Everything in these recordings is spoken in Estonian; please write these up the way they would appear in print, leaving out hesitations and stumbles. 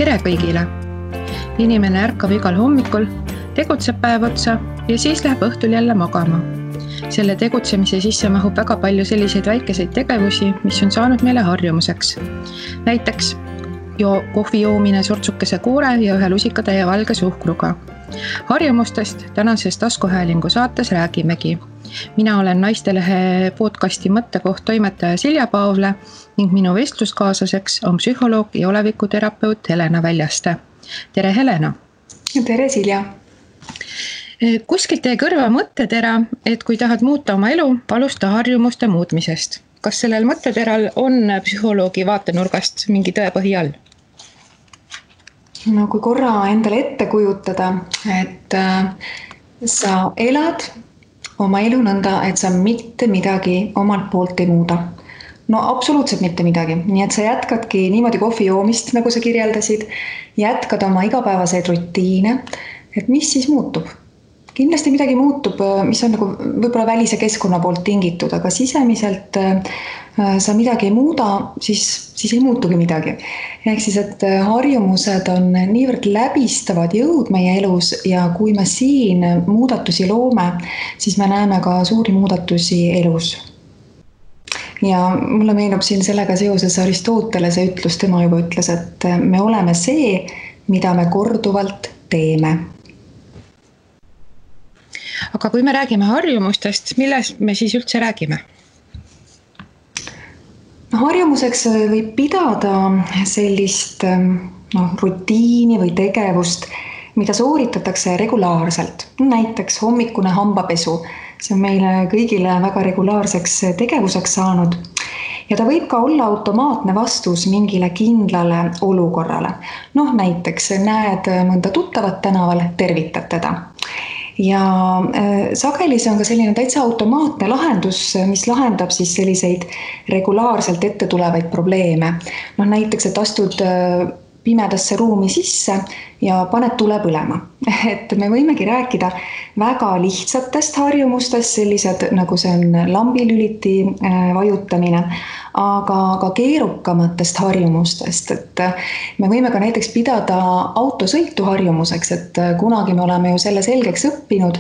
Tere kõigile! Inimene ärkab igal hommikul, tegutseb päev otsa ja siis läheb õhtul jälle magama. Selle tegutsemise sisse mahub väga palju selliseid väikeseid tegevusi, mis on saanud meile harjumuseks. Näiteks kohvi joomine sortsukese koore ja ühe lusikatäie valge suhkruga. Harjumustest tänases taskuhäälingu saates räägimegi. Mina olen Naistelehe podcasti Mõttekoht toimetaja Silja Paavle ning minu vestluskaaslaseks on psühholoog ja olevikuterapeut Helena Väljaste. Tere Helena! Tere Silja! Kuskilt teie kõrva mõttetera, et kui tahad muuta oma elu, alusta harjumuste muutmisest. Kas sellel mõtteteral on psühholoogi vaatenurgast mingi tõepõhi all? No kui korra endale ette kujutada, et sa elad oma elu nõnda, et sa mitte midagi omalt poolt ei muuda. No absoluutselt mitte midagi. Nii et sa jätkadki niimoodi kohvi joomist, nagu sa kirjeldasid, jätkad oma igapäevaseid rutiine, et mis siis muutub? Kindlasti midagi muutub, mis on nagu võib-olla välise keskkonna poolt tingitud, aga sisemiselt sa midagi ei muuda, siis ei muutugi midagi. Ehk siis, et harjumused on niivõrd läbistavad jõud meie elus ja kui me siin muudatusi loome, siis me näeme ka suuri muudatusi elus. Ja mulle meenub siin sellega seoses Aristotelese ütlus, tema juba ütles, et me oleme see, mida me korduvalt teeme. Aga kui me räägime harjumustest, millest me siis üldse räägime? Harjumuseks võib pidada sellist rutiini või tegevust, mida sooritatakse regulaarselt. Näiteks hommikune hambapesu. See on meile kõigile väga regulaarseks tegevuseks saanud. Ja ta võib ka olla automaatne vastus mingile kindlale olukorrale. Näiteks näed mõnda tuttavat tänaval, tervitad teda. Ja sageli see on ka selline täitsa automaatne lahendus, mis lahendab siis selliseid regulaarselt ette tulevaid probleeme. Näiteks, et astud pimedasse ruumi sisse ja paned tule põlema. Et me võimegi rääkida väga lihtsatest harjumustest, sellised nagu see on lambilüliti vajutamine, aga keerukamatest harjumustest. Et me võime ka näiteks pidada autosõitu harjumuseks, et kunagi me oleme ju selle selgeks õppinud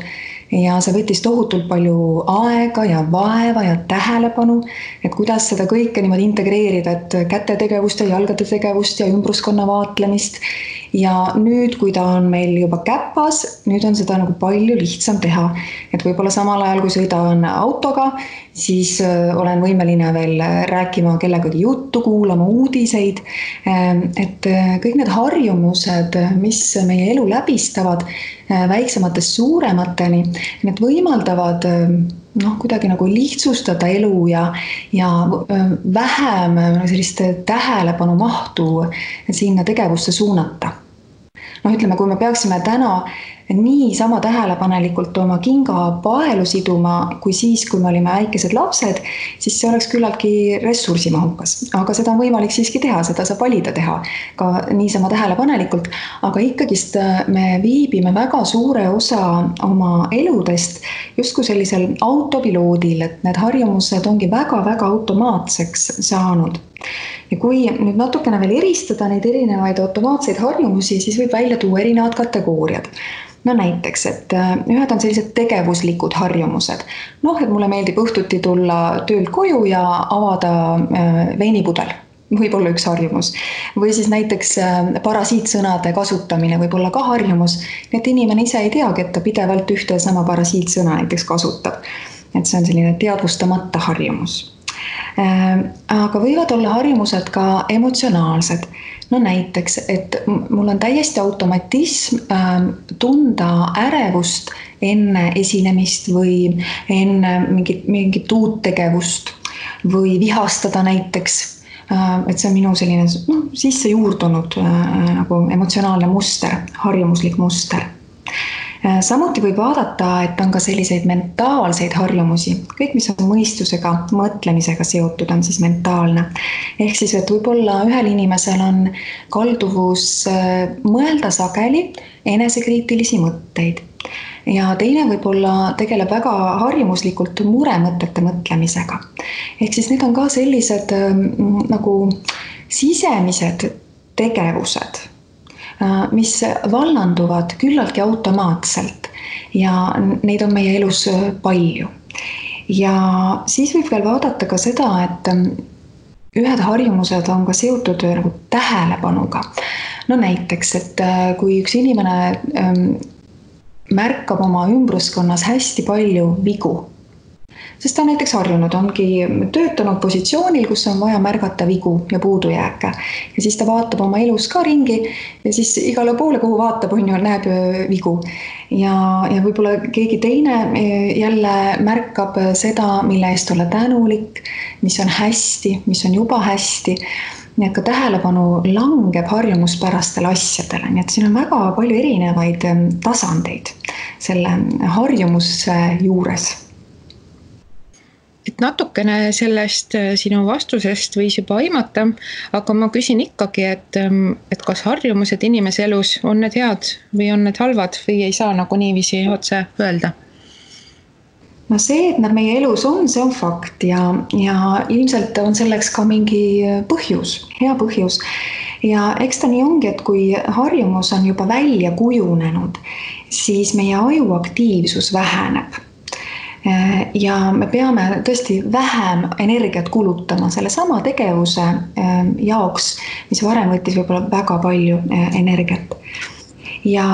ja see võttis tohutult palju aega ja vaeva ja tähelepanu, et kuidas seda kõike niimoodi integreerida, et käte tegevust ja jalgade tegevust ja ümbruskonna vaatlemist. Ja nüüd, kui ta on meil juba käpas, nüüd on seda nagu palju lihtsam teha. Et võib-olla samal ajal, kui sõidan autoga, siis olen võimeline veel rääkima kellegagi juttu, kuulama uudiseid. Et kõik need harjumused, mis meie elu läbistavad väiksematest suuremateni, need võimaldavad kuidagi nagu lihtsustada elu ja vähem sellist tähelepanu mahtu sinna tegevusse suunata. Ütleme, kui me peaksime täna nii sama tähelepanelikult oma kinga paelu siduma, kui siis, kui me olime väikesed lapsed, siis see oleks küllaltki ressursimahukas. Aga seda on võimalik siiski teha, seda saab valida teha ka niisama tähelepanelikult. Aga ikkagist me viibime väga suure osa oma eludest justkui sellisel autopiloodil, et need harjumused ongi väga-väga automaatseks saanud. Ja kui nüüd natukene veel eristada neid erinevaid automaatseid harjumusi, siis võib välja tuua erinevad kategooriad. Näiteks, et ühed on sellised tegevuslikud harjumused. Et mulle meeldib õhtuti tulla töölt koju ja avada veinipudel. Võib olla üks harjumus. Või siis näiteks parasiitsõnade kasutamine võib olla ka harjumus. Et inimene ise ei teagi, et ta pidevalt ühte sama parasiitsõna näiteks kasutab. Et see on selline teadvustamata harjumus. Aga võivad olla harjumused ka emotsionaalsed. Näiteks, et mul on täiesti automatism tunda ärevust enne esinemist või enne mingit uut tegevust või vihastada näiteks. Et see on minu selline sisse juurdunud nagu emotsionaalne muster, harjumuslik muster. Samuti võib vaadata, et on ka selliseid mentaalseid harjumusi. Kõik, mis on mõistusega, mõtlemisega seotud, on siis mentaalne. Ehk siis, et võib-olla ühel inimesel on kalduvus mõelda sageli enesekriitilisi mõtteid. Ja teine võib-olla tegeleb väga harjumuslikult muremõtete mõtlemisega. Ehk siis need on ka sellised nagu sisemised tegevused, mis vallanduvad küllaltki automaatselt ja neid on meie elus palju. Ja siis võib veel vaadata ka seda, et ühed harjumused on ka seotud nagu tähelepanuga. No näiteks, et kui üks inimene märkab oma ümbruskonnas hästi palju vigu, sest ta on näiteks harjunud, ongi töötanud positsioonil, kus on vaja märgata vigu ja puudujääke. Ja siis ta vaatab oma elus ka ringi ja siis igale poole, kuhu vaatab, näeb vigu. Ja võib-olla keegi teine jälle märkab seda, mille eest olla tänulik, mis on hästi, mis on juba hästi. Nii et ka tähelepanu langeb harjumuspärastele asjadele. Nii et siin on väga palju erinevaid tasandeid selle harjumuse juures. Et natukene sellest sinu vastusest võis juba aimata, aga ma küsin ikkagi, et kas harjumused inimese elus on need head või on need halvad või ei saa nagu niiviisi otse öelda? No see, et nad meie elus on, see on fakt ja ilmselt on selleks ka mingi põhjus, hea põhjus. Ja eks ta nii ongi, et kui harjumus on juba välja kujunenud, siis meie aju aktiivsus väheneb. Ja me peame tõesti vähem energiat kulutama selle sama tegevuse jaoks, mis varem võttis võib-olla väga palju energiat. Ja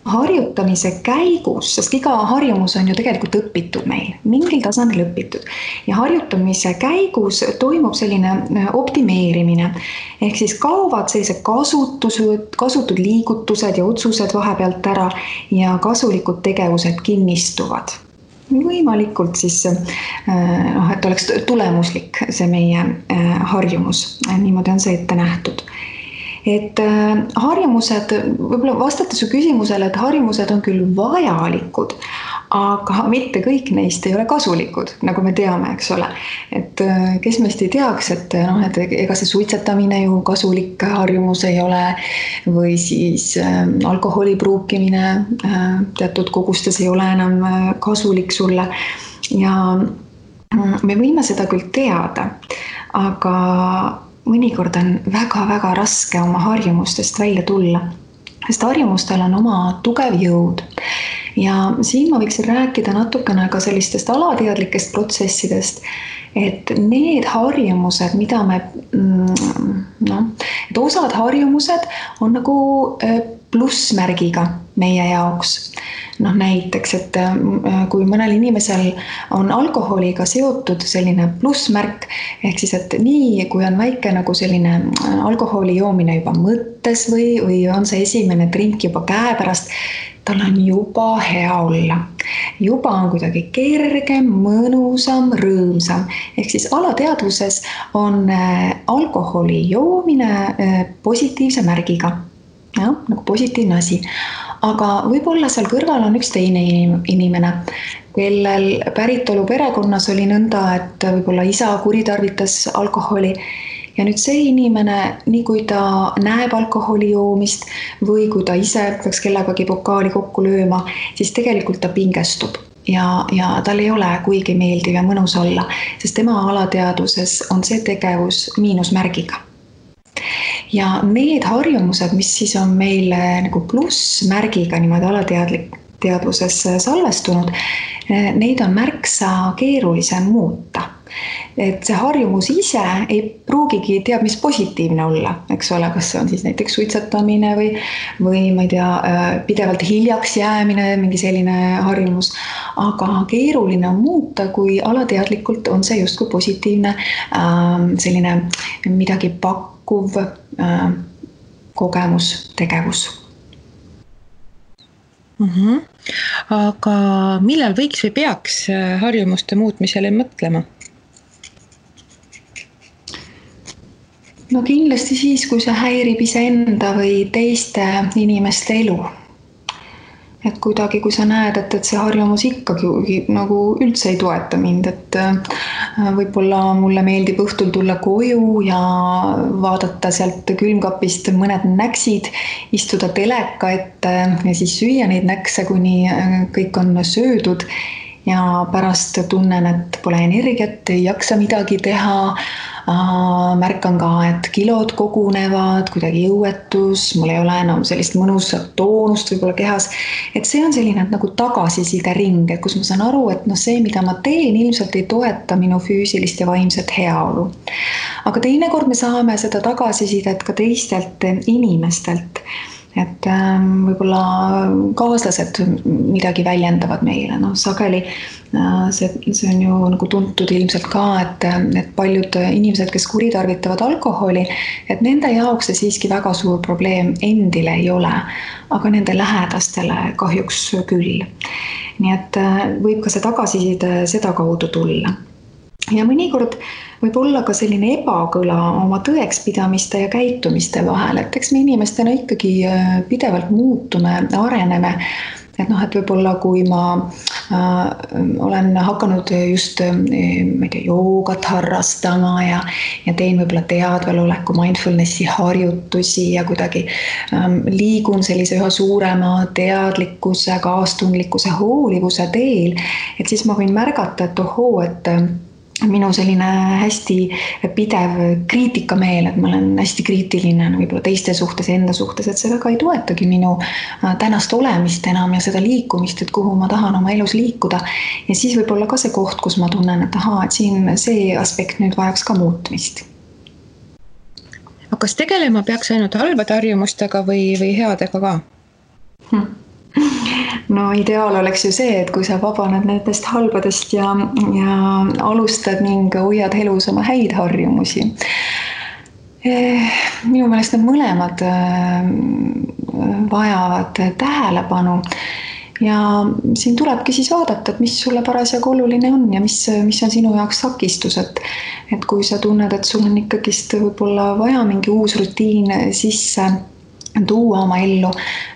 harjutamise käigus, sest iga harjumus on ju tegelikult õpitud meil, mingil tasandil õpitud. Ja harjutamise käigus toimub selline optimeerimine. Ehk siis kaovad sellised kasutud liigutused ja otsused vahepealt ära ja kasulikud tegevused kinnistuvad. Võimalikult siis, et oleks tulemuslik see meie harjumus. Niimoodi on see ette nähtud. Et harjumused, võib-olla vastates su küsimusele, et harjumused on küll vajalikud, aga mitte kõik neist ei ole kasulikud, nagu me teame, eks ole. Et kes meist ei teaks, et ega see suitsetamine ju kasulik harjumus ei ole või siis alkoholi pruukimine teatud kogustes ei ole enam kasulik sulle. Ja me võime seda küll teada, aga mõnikord on väga-väga raske oma harjumustest välja tulla, sest harjumustel on oma tugev jõud. Ja siin ma võiksin rääkida natukene ka sellistest alateadlikest protsessidest, et need harjumused, mida me, et osad harjumused on nagu plussmärgiga meie jaoks. Näiteks, et kui mõnel inimesel on alkoholiga seotud selline plussmärk, ehk siis, et nii, kui on väike nagu selline alkoholi joomine juba mõttes või on see esimene drink juba käepärast, tal on juba hea olla. Juba on kuidagi kergem, mõnusam, rõõmsam. Ehk siis alateadvuses on alkoholi joomine positiivse märgiga. Ja, nagu positiivne asi. Aga võib-olla seal kõrval on üks teine inimene, kellel päritolu perekonnas oli nõnda, et võib-olla isa kuritarvitas alkoholi. Ja nüüd see inimene, nii kui ta näeb alkoholi joomist või kui ta ise peaks kellegagi pokaali kokku lööma, siis tegelikult ta pingestub. Ja tal ei ole kuigi meeldiv ja mõnus olla, sest tema alateadvuses on see tegevus miinusmärgiga. Ja need harjumused, mis siis on meil nagu plussmärgiga niimoodi alateadvuses salvestunud, neid on märksa keerulisem muuta. Et see harjumus ise ei pruugigi teab, mis positiivne olla, eks ole, kas see on siis näiteks suitsetamine või ma ei tea, pidevalt hiljaks jäämine, mingi selline harjumus, aga keeruline on muuta, kui alateadlikult on see justkui positiivne selline midagi pakkuv kogemus, tegevus. Aga millal võiks või peaks harjumuste muutmisele mõtlema? No kindlasti siis, kui see häirib iseenda või teiste inimeste elu. Et kuidagi, kui sa näed, et see harjumus ikkagi nagu üldse ei toeta mind, et võib-olla mulle meeldib õhtul tulla koju ja vaadata sealt külmkapist mõned näksid, istuda teleka ette ja siis süüa neid näkse, kuni kõik on söödud. ja pärast tunnen, et pole energiat, ei jaksa midagi teha. Märkan ka, et kilod kogunevad, kuidagi jõuetus, mul ei ole enam sellist mõnusat toonust võib-olla kehas. Et see on selline nagu tagasiside ring, kus ma saan aru, et see, mida ma teen, ilmselt ei toeta minu füüsilist ja vaimset heaolu. Aga teinekord me saame seda tagasisidet ka teistelt inimestelt. Et võib-olla kaaslased midagi väljendavad meile. Sageli see on ju nagu tuntud ilmselt ka, et paljud inimesed, kes kuritarvitavad alkoholi, et nende jaoks see siiski väga suur probleem endile ei ole, aga nende lähedastele kahjuks küll. Nii et võib ka see tagasiside seda kaudu tulla. Ja mõnikord võib olla ka selline ebakõla oma tõekspidamiste ja käitumiste vahel, et eks me inimestena ikkagi pidevalt muutume, areneme. Et võib-olla kui ma olen hakanud just joogat harrastama ja teen võib-olla teadveloleku mindfulnessi harjutusi ja kuidagi liigun sellise üha suurema teadlikkuse, kaastundlikkuse, hoolivuse teel, et siis ma võin märgata, et et minu selline hästi pidev kriitikameel, et ma olen hästi kriitiline võib-olla teiste suhtes, enda suhtes, et see väga ei toetagi minu tänast olemist enam ja seda liikumist, et kuhu ma tahan oma elus liikuda. Ja siis võib-olla ka see koht, kus ma tunnen, et et siin see aspekt nüüd vajaks ka muutmist. Aga kas tegelema peaks ainult halbade harjumustega või headega ka? No ideaal oleks ju see, et kui sa vabaned nendest halbadest ja alustad ning hoiad elus oma häid harjumusi. Minu meelest need mõlemad vajavad tähelepanu ja siin tulebki siis vaadata, et mis sulle parasjagu oluline on ja mis on sinu jaoks takistus, et kui sa tunned, et sul on ikkagist võib-olla vaja mingi uus rutiin sisse tuua oma ellu,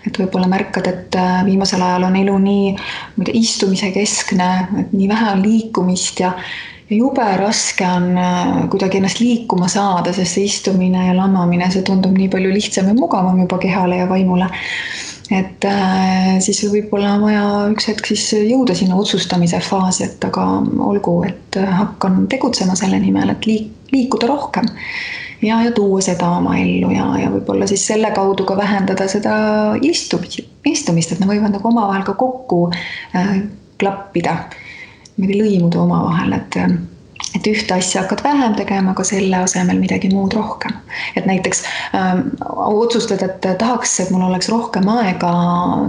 et võib-olla märkad, et viimasel ajal on elu nii istumise keskne, et nii vähe on liikumist ja jube raske on kuidagi ennast liikuma saada, sest see istumine ja lamamine, see tundub nii palju lihtsam ja mugavam juba kehale ja vaimule. Et siis võib-olla vaja üks hetk siis jõuda sinna otsustamise faasi, et aga olgu, et hakkan tegutsema selle nimel, et liikuda rohkem. Ja tuua seda oma ellu ja võib-olla siis selle kaudu ka vähendada seda istumist, et ne võivad nagu omavahel ka kokku klappida, lõimuda omavahel, et ühte asja hakkad vähem tegema, aga selle asemel midagi muud rohkem. Et näiteks otsustad, et tahaks, et mul oleks rohkem aega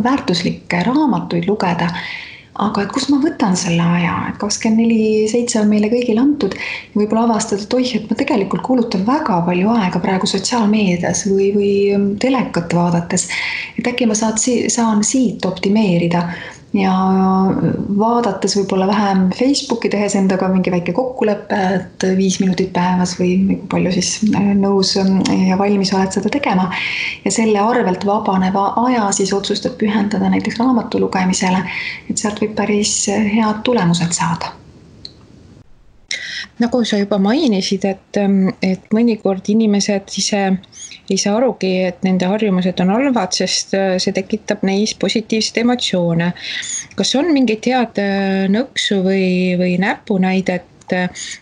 väärtuslikke raamatuid lugeda, aga et kus ma võtan selle aja, et 24/7 on meile kõigile antud ja võib-olla avastada, et ma tegelikult kulutan väga palju aega praegu sotsiaalmeedias või telekat vaadates, et äkki ma saan siit optimeerida ja vaadates võib-olla vähem Facebooki, tehes endaga mingi väike kokkulepe, et 5 minutit päevas või palju siis nõus ja valmis oled seda tegema ja selle arvelt vabaneva aja siis otsustad pühendada näiteks raamatu lugemisele, et sealt võib päris head tulemused saada. Nagu sa juba mainisid, et mõnikord inimesed ise ei saa arugi, et nende harjumused on halvad, sest see tekitab neis positiivseid emotsioone. Kas on mingit head nõksu või näpunäidet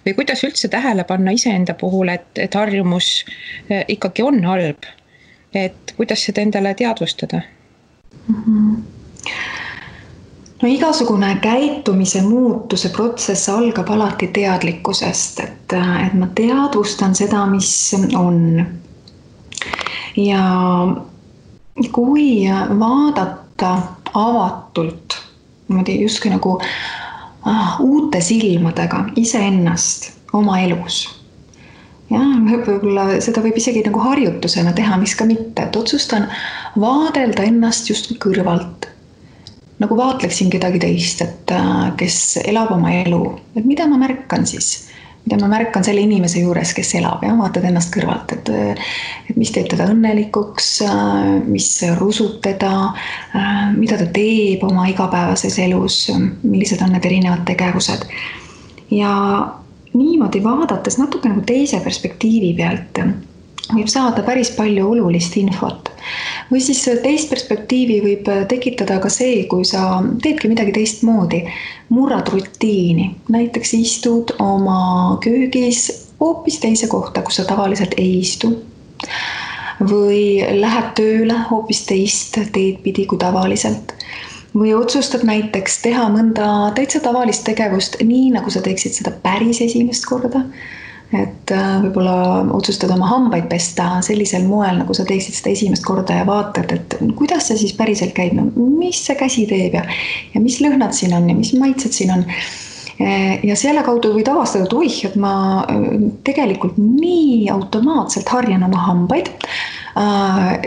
või kuidas üldse tähele panna iseenda puhul, et harjumus ikkagi on halb? Et kuidas seda endale teadvustada? No igasugune käitumise muutuse protsess algab alati teadlikkusest, et ma teadvustan seda, mis on. Ja kui vaadata avatult, justkui nagu uute silmadega iseennast oma elus. Ja võib-olla seda võib isegi nagu harjutusena teha, mis ka mitte, et otsustan vaadelda ennast just kõrvalt. Nagu vaatleksin kedagi teist, et kes elab oma elu, et mida ma märkan siis, mida ma märkan selle inimese juures, kes elab ja vaatad ennast kõrvalt, et mis teeb teda õnnelikuks, mis rusub teda, mida ta teeb oma igapäevases elus, millised on need erinevad tegevused. Ja niimoodi vaadates natuke nagu teise perspektiivi pealt võib saada päris palju olulist infot. Või siis teist perspektiivi võib tekitada ka see, kui sa teedki midagi teistmoodi, murrad rutiini, näiteks istud oma köögis hoopis teise kohta, kus sa tavaliselt ei istu. Või lähed tööle hoopis teist teed pidi kui tavaliselt. Või otsustad näiteks teha mõnda täitsa tavalist tegevust nii, nagu sa teeksid seda päris esimest korda. Et võib-olla otsustad oma hambaid pesta sellisel moel, nagu sa teeksid seda esimest korda ja vaatad, et kuidas see siis päriselt käib, no, mis see käsi teeb ja mis lõhnad siin on ja mis maitsed siin on. Ja selle kaudu võid avastada, et oih, et ma tegelikult nii automaatselt harjan oma hambaid.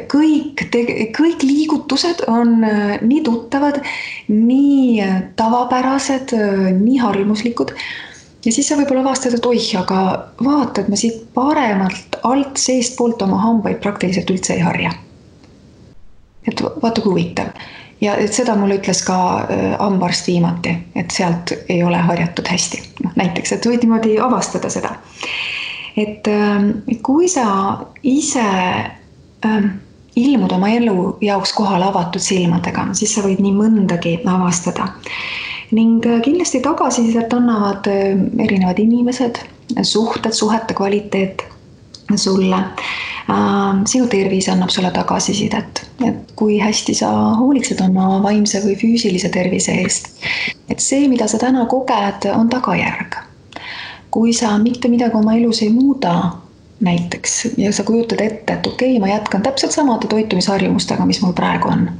Kõik liigutused on nii tuttavad, nii tavapärased, nii harjumuslikud. Ja siis sa võib-olla avastad, et oih, aga vaata, et ma siit paremalt alt seest poolt oma hambaid praktiliselt üldse ei harja. Et vaata kui huvitav. Ja et seda mulle ütles ka hambaarst viimati, et sealt ei ole harjatud hästi. No, näiteks, et võid niimoodi avastada seda. Et kui sa ise ilmud oma elu jaoks kohale avatud silmadega, siis sa võid nii mõndagi avastada. Ning kindlasti tagasisidet annavad erinevad inimesed, suhete kvaliteet sulle. Sinu tervis annab sulle tagasisidet, et kui hästi sa hoolitsed oma vaimse või füüsilise tervise eest. Et see, mida sa täna koged, on tagajärg. Kui sa mitte midagi oma elus ei muuda, näiteks, ja sa kujutad ette, et okei, ma jätkan täpselt samade toitumisharjumustega, mis mul praegu on.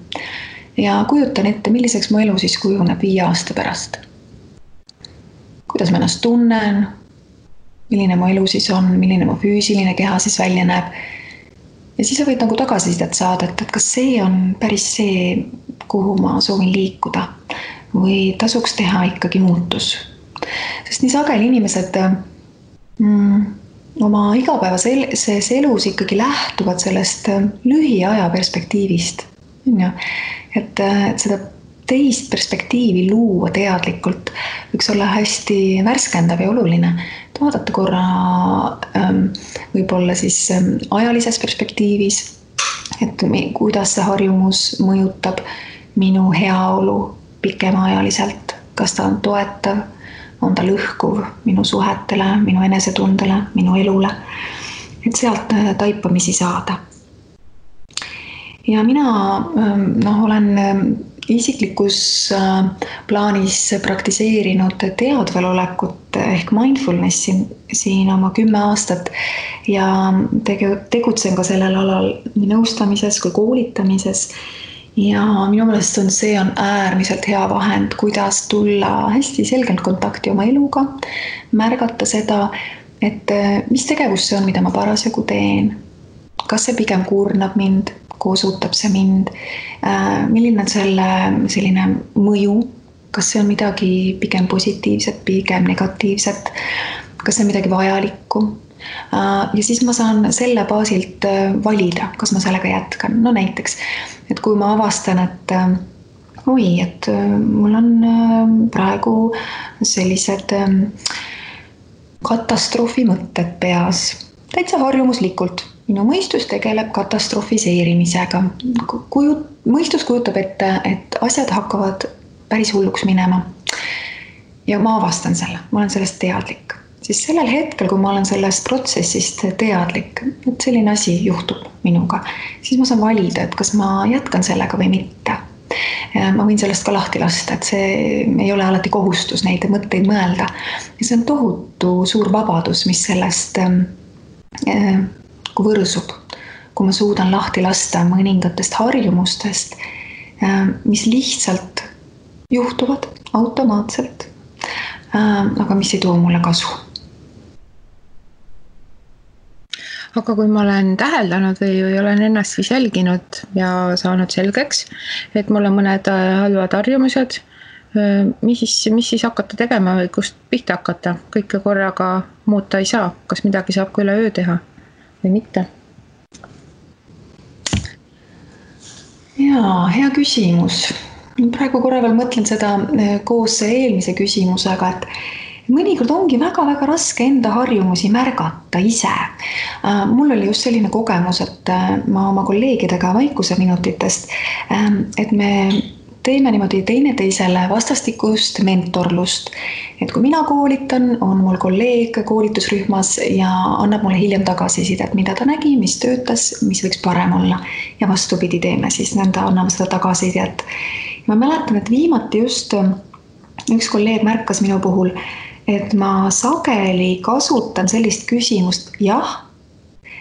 Ja kujutan ette, milliseks mu elu siis kujuneb 5 aasta pärast. Kuidas ma ennast tunnen, milline mu elu siis on, milline mu füüsiline keha siis välja näeb. Ja siis sa võid nagu tagasisidet saada, et kas see on päris see, kuhu ma soovin liikuda või tasuks teha ikkagi muutus. Sest nii sageli inimesed oma igapäevases elus ikkagi lähtuvad sellest lühiaja perspektiivist. Et seda teist perspektiivi luua teadlikult võiks olla hästi värskendav ja oluline. Vaadata korra võib-olla siis ajalises perspektiivis, et kuidas see harjumus mõjutab minu heaolu pikemaajaliselt, kas ta on toetav, on ta lõhkuv minu suhetele, minu enesetundele, minu elule, et sealt taipamisi saada. Ja mina olen isiklikus plaanis praktiseerinud teadvelolekut ehk mindfulnessi siin oma 10 aastat ja tegutsen ka sellel alal nii nõustamises kui koolitamises. Ja minu meelest see on äärmiselt hea vahend, kuidas tulla hästi selgelt kontakti oma eluga, märgata seda, et mis tegevus see on, mida ma parasjagu teen. Kas see pigem kurnab mind, koosutab see mind, milline on selline mõju, kas see on midagi pigem positiivset, pigem negatiivset, kas see on midagi vajalikku. Ja siis ma saan selle baasilt valida, kas ma sellega jätkan. No näiteks, et kui ma avastan, et et mul on praegu sellised katastroofi mõtted peas, täitsa harjumuslikult. Minu mõistus tegeleb katastrofiseerimisega. Mõistus kujutab ette, et asjad hakkavad päris hulluks minema. Ja ma avastan selle, ma olen sellest teadlik. Siis sellel hetkel, kui ma olen sellest protsessist teadlik, et selline asi juhtub minuga, siis ma saan valida, et kas ma jätkan sellega või mitte. Ma võin sellest ka lahti lasta, et see ei ole alati kohustus neid mõtteid mõelda. Ja see on tohutu suur vabadus, mis sellest kui võrsub, kui ma suudan lahti lasta mõningatest harjumustest, mis lihtsalt juhtuvad automaatselt, aga mis ei too mulle kasu. Aga kui ma olen täheldanud või olen ennast siis jälginud ja saanud selgeks, et mul on mõned halvad harjumused, mis siis hakata tegema või kust pihta hakata? Kõike korraga muuta ei saa. Kas midagi saab ka üle öö teha või mitte? Jaa, hea küsimus. Praegu korra veel mõtlen seda koos eelmise küsimusega, et mõnikord ongi väga-väga raske enda harjumusi märgata ise. Mul oli just selline kogemus, et ma oma kolleegidega vaikuseminutitest, et me teeme niimoodi teineteisele vastastikust mentorlust. Et kui mina koolitan, on mul kolleeg koolitusrühmas ja annab mulle hiljem tagasisidet, mida ta nägi, mis töötas, mis võiks parem olla. Ja vastupidi teeme siis nõnda, anname seda tagasisidet. Ma mäletan, et viimati just üks kolleeg märkas minu puhul, et ma sageli kasutan sellist küsimust jah,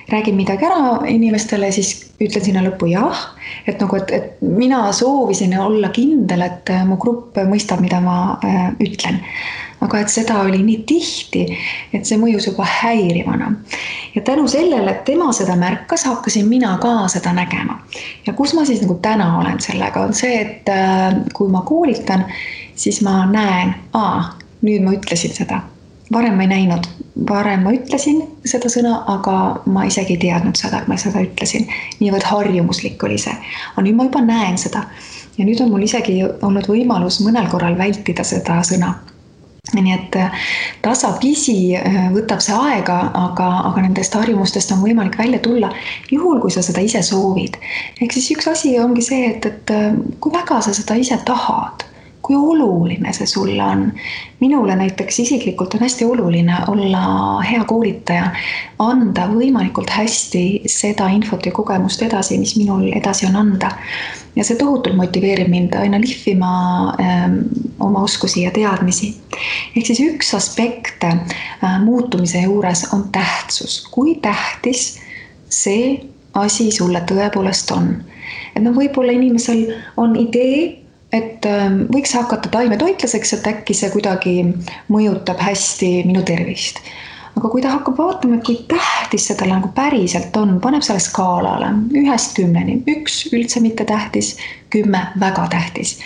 räägin midagi ära inimestele, siis ütlen sinna lõppu jah, et mina soovisin olla kindel, et mu grupp mõistab, mida ma ütlen. Aga et seda oli nii tihti, et see mõjus juba häirivana. Ja tänu sellele, et tema seda märkas, hakkasin mina ka seda nägema. Ja kus ma siis täna olen sellega, on see, et kui ma koolitan, siis ma näen, nüüd ma ütlesin seda. Varem ma ei näinud, varem ma ütlesin seda sõna, aga ma isegi ei teadnud seda, et ma seda ütlesin. Niivõrd harjumuslik oli see. Aga nüüd ma juba näen seda. Ja nüüd on mul isegi olnud võimalus mõnel korral vältida seda sõna. Nii et tasapisi võtab see aega, aga nendest harjumustest on võimalik välja tulla juhul, kui sa seda ise soovid. Ehk siis üks asi ongi see, et kui väga sa seda ise tahad, kui oluline see sulle on. Minule näiteks isiklikult on hästi oluline olla hea koolitaja, anda võimalikult hästi seda infot ja kogemust edasi, mis minul edasi on anda. Ja see tohutult motiveerib mind aina lihvima oma oskusi ja teadmisi. Ehk siis üks aspekt muutumise juures on tähtsus. Kui tähtis see asi sulle tõepoolest on. Et võib-olla inimesel on idee, et võiks hakata taimetoitlaseks, et äkki see kuidagi mõjutab hästi minu tervist. Aga kui ta hakkab vaatama, et kui tähtis seda päriselt on, paneb selle skaalale 1-10, 1 üldse mitte tähtis, 10 väga tähtis.